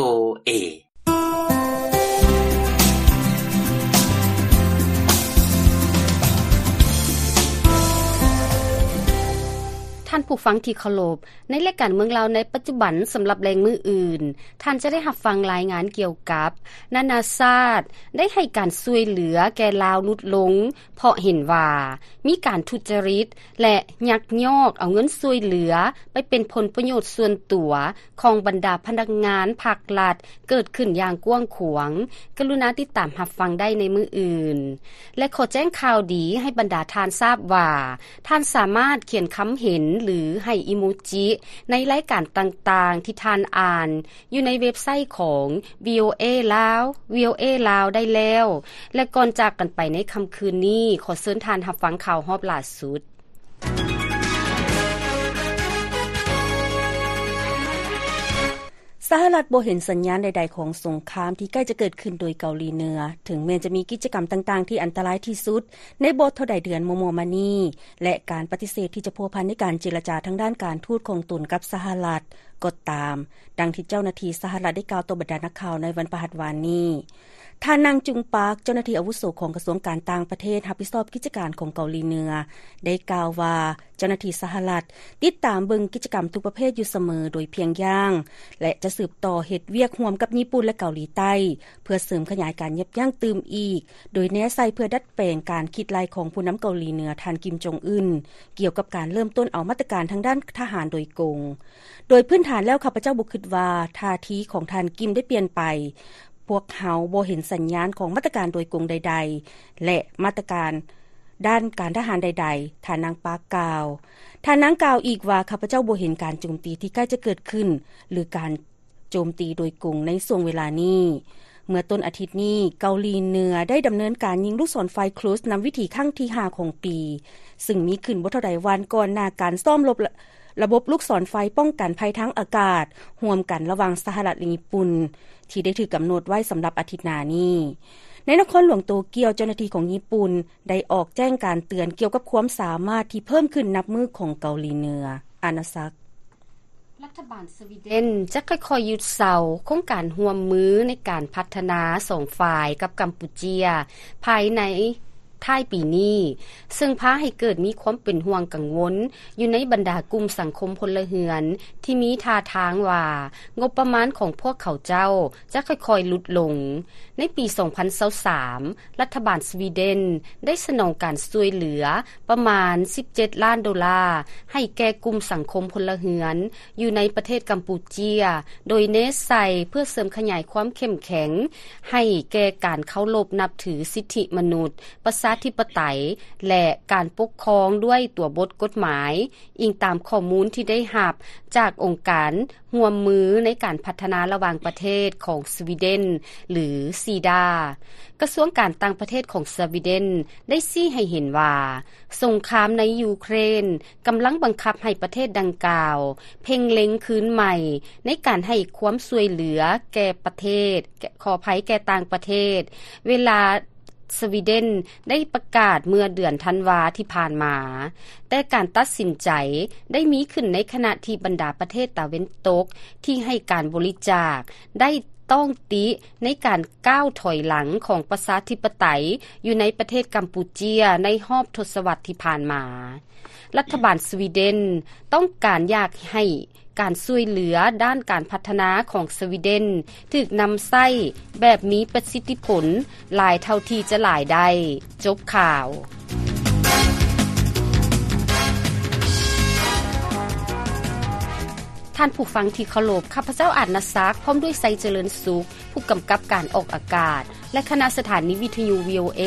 ເອ. ທ່ານຜູ້ຟັງທີ່ເຄົາລົບ, ໃນລາຍການເມືອງລາວໃນປັດຈຸບັນ ສຳລັບແລງມື້ອື່ນ, ທ່ານຈະໄດ້ຮັບຟັງລາຍງານກ່ຽວກັບ ນານາຊາດໄດ້ໃຫ້ການຊ່ວຍເຫຼືອແກ່ລາວຫຼຸດລົງ ເພາະເຫັນວ່າມີການທຸດຈະລິດ ແລະ ຍັກຍອກເອົາເງິນຊ່ວຍເຫຼືອໄປເປັນຜົນປະໂຫຍດສ່ວນຕົວ ຂອງບັນດາພະນັກງານພັກລັດເກີດຂຶ້ນຢ່າງກວ້າງຂວາງ, ກະລຸນາຕິດຕາມຮັບຟັງໄດ້ໃນມື້ອື່ນ. ແລະ ຂໍແຈ້ງຂ່າວດີໃຫ້ບັນດາທ່ານຊາບວ່າ, ທ່ານສາມາດຂຽນຄຳເຫັນ ຫຼື ໃຫ້ອີໂມຈິໃນລາຍການຕ່າງໆທີ່ທ່ານອ່ານ ຢູ່ໃນເວັບໄຊຂອງ ວີໂອເອ ລາວ, ວີໂອເອ ລາວ ໄດ້ແລ້ວ. ແລະ ກ່ອນຈາກກັນໄປໃນຄ່ຳຄືນນີ້, ຂໍເຊີນທ່ານຮັບຟັງຂ່າວຮອບຫຼ້າສຸດ. ສະຫະລັດບໍ່ເຫັນສັນຍານໃດໆຂອງສົງຄາມທີ່ໃກ້ຈະເກີດຂຶ້ນໂດຍເກົາຫຼີເໜືອ, ເຖິງແມ່ນຈະມີກິດຈະກຳຕ່າງໆທີ່ອັນຕະລາຍທີ່ສຸດໃນບໍ່ເທົ່າໃດເດືອນມໍ່ໆມານີ້ ແລະ ການປະຕິເສດທີ່ຈະພົວພັນໃນການເຈລະຈາທາງດ້ານການທູດຂອງຕົນກັບສະຫະລັດກໍຕາມ, ດັ່ງທີ່ເຈົ້າໜ້າທີ່ສະຫະລັດໄດ້ກ່າວຕໍ່ບັນດານັກຂ່າວໃນວັນພະຫັດວານນີ້. ທ່ານ ນາງ ຈຸງ ປາກ, ເຈົ້າໜ້າທີ່ອາວຸໂສຂອງກະຊວງການຕ່າງປະເທດ ຮັບຜິດຊອບກິດຈະການຂອງເກົາຫຼີເໜືອ ໄດ້ກ່າວວ່າ ເຈົ້າໜ້າທີ່ສະຫະລັດຕິດຕາມເບິ່ງກິດຈະກຳທຸກປະເພດຢູ່ສະເໝີໂດຍພຽງຢ່າງ ແລະ ຈະສືບຕໍ່ເຮັດວຽກຮ່ວມກັບຍີ່ປຸ່ນ ແລະ ເກົາຫຼີໃຕ້ ເພື່ອເສີມຂະຫຍາຍການຢັບຢັ້ງຕື່ມອີກ, ໂດຍແນໃສ່ເພື່ອດັດແປງການຄິດໄລ່ຂອງຜູ້ນຳເກົາຫຼີເໜືອ ທ່ານ ກິມ ຈົງອຶນ ກ່ຽວກັບການເລີ່ມຕົ້ນເອົາມາດຕະການທາງດ້ານທະຫານໂດຍກົງ. ໂດຍພື້ນຖານແລ້ວ ຂ້າພະເຈົ້າບໍ່ຄິດວ່າທ່າທີຂອງທ່ານ ກິມ ໄດ້ປ່ຽນໄປ. ພວກເຮົາບໍ່ເຫັນສັນຍານຂອງມາດຕະການໂດຍກົງໃດໆ ແລະ ມາດຕະການດ້ານການທະຫານໃດໆ, ທ່ານນາງປາກກ່າວ. ທ່ານນາງກ່າວອີກວ່າ, ຂ້າພະເຈົ້າບໍ່ເຫັນການໂຈມຕີທີ່ໃກ້ຈະເກີດຂຶ້ນ ຫຼື ການໂຈມຕີໂດຍກົງໃນຊ່ວງເວລານີ້. ເມື່ອຕົ້ນອາທິດນີ້, ເກົາຫຼີເໜືອໄດ້ດຳເນີນການຍິງລູກສອນໄຟ Cruise ນຳວິຖີຄັ້ງທີຫ້າຂອງປີ, ຊຶ່ງມີຂຶ້ນບໍ່ເທົ່າໃດວັນກ່ອນໜ້າການຊ້ອມລົບ ລະບົບລູກສອນໄຟປ້ອງກັນໄພທາງອາກາດຮ່ວມກັນລະຫວ່າງສະຫະລັດ ແລະ ຍີ່ປຸ່ນ ທີ່ໄດ້ຖືກກຳນົດໄວ້ສຳລັບອາທິດໜ້ານີ້. ໃນນະຄອນຫຼວງໂຕກຽວ, ເຈົ້າໜ້າທີ່ຂອງຍີ່ປຸ່ນໄດ້ອອກແຈ້ງການເຕືອນກ່ຽວກັບຄວາມສາມາດທີ່ເພີ່ມຂຶ້ນນັບມື້ຂອງເກົາຫຼີເໜືອ. ອານາສັກ. ລັດຖະບານສະວີເດັນຈະຄ່ອຍໆຢຸດເຊົາໂຄງການຮ່ວມມືໃນການພັດທະນາສອງຝ່າຍກັບກຳປູເຈຍ ພາຍໃນ ທ້າຍປີນີ້, ເຊິ່ງພາໃຫ້ເກີດມີຄວາມເປັນຫ່ວງກັງວົນຢູ່ໃນບັນດາກຸ່ມສັງຄົມພົນລະເຮືອນ ທີ່ມີທ່າທາງວ່າງົບປະມານຂອງພວກເຂົາເຈົ້າຈະຄ່ອຍໆຫຼຸດລົງ. ໃນປີສອງພັນຊາວສາມ ລັດຖະບານສະວີເດັນໄດ້ສະໜອງການຊ່ວຍເຫຼືອປະມານສິບເຈັດລ້ານໂດລາ ໃຫ້ແກ່ກຸ່ມສັງຄົມພົນລະເຮືອນ ຢູ່ໃນປະເທດກຳປູເຈຍ ໂດຍເນັ້ນໃສ່ເພື່ອເສີມຂະຫຍາຍຄວາມເຂັ້ມແຂງໃຫ້ແກ່ການເຄົາລົບນັບຖືສິດທິມະນຸດ, ປະຊາທິປະໄຕ ແລະ ການປົກຄອງດ້ວຍຕົວບົດກົດໝາຍ, ອີງຕາມຂໍ້ມູນທີ່ໄດ້ຮັບຈາກອົງການຮ່ວມມືໃນການພັດທະນາລະຫວ່າງປະເທດຂອງສະວີເດັນ ຫຼື ຊີດາ. ກະຊວງການຕ່າງປະເທດຂອງສະວີເດັນໄດ້ຊີ້ໃຫ້ເຫັນວ່າ ສົງຄາມໃນຢູເຄຣນ ກຳລັງບັງຄັບໃຫ້ປະເທດດັ່ງກ່າວເພັ່ງເລັງຄືນໃໝ່ໃນການໃຫ້ຄວາມຊ່ວຍເຫຼືອແກ່ປະເທດ, ຂໍອະໄພ, ແກ່ຕ່າງປະເທດ, ເວລາສະວີເດັນໄດ້ປະກາດເມື່ອເດືອນທັນວາທີ່ຜ່ານມາ. ແຕ່ການຕັດສິນໃຈໄດ້ມີຂຶ້ນໃນຂະນະທີ່ບັນດາປະເທດຕາເວັນຕົກທີ່ໃຫ້ການບໍລິຈາກໄດ້ຕ້ອງຕິໃນການກ້າວຖອຍຫຼັງຂອງປະຊາທິປະໄຕຢູ່ໃນປະເທດກຳປູເຈຍໃນຮອບທົດສະວັດທີ່ຜ່ານມາ. ລັດຖະບານສະວີເດັນຕ້ອງການຢາກໃຫ້ການຊ່ວຍເຫຼືອດ້ານການພັດທະນາຂອງສະວີເດັນຖືກນຳໃຊ້ແບບມີປະສິດທິຜົນຫຼາຍເທົ່າທີ່ຈະຫຼາຍໄດ້. ຈົບຂ່າວ. ທ່ານຜູ້ຟັງທີ່ເຄົາລົບ, ຂ້າພະເຈົ້າ ອາດນະສັກ ພ້ອມດ້ວຍ ໄຊຈະເລີນສຸກ ຜູ້ກຳກັບການອອກອາກາດ ແລະ ຄະນະສະຖານີວິທະຍຸ ວີໂອເອ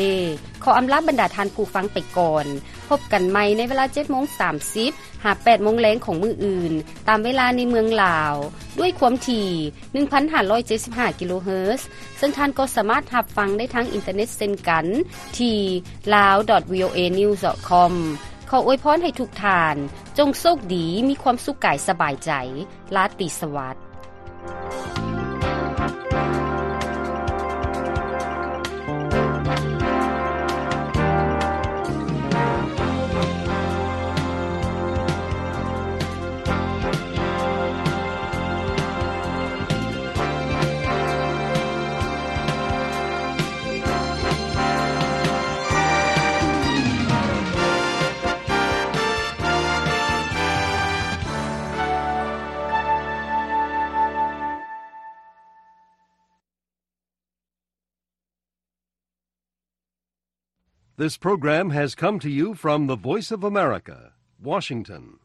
ຂໍອຳລາບັນດາທ່ານຜູ້ຟັງໄປກ່ອນ. ພົບກັນໃໝ່ໃນເວລາເຈັດໂມງສາມສິບ ຫາແປດໂມງແລງຂອງມື້ອື່ນ ຕາມເວລາໃນເມືອງລາວ ດ້ວຍຄວາມຖີ່ໜຶ່ງພັນຫ້າຮ້ອຍເຈັດສິບຫ້າກິໂລເຮີດ, ເຊິ່ງທ່ານກໍສາມາດຮັບຟັງໄດ້ທາງອິນເຕີເນັດເຊັ່ນກັນ ທີ່ ລາວ ດອດ ວີໂອເອ ນິວສ໌ ດອດ ຄອມ. ຂໍອວຍພອນໃຫ້ທຸກທ່ານ ຈົ່ງໂຊກດີ, ມີຄວາມສຸກກາຍສະບາຍໃຈ. ລາຕີສະຫວັດ. This program has come to you from the Voice of America, Washington.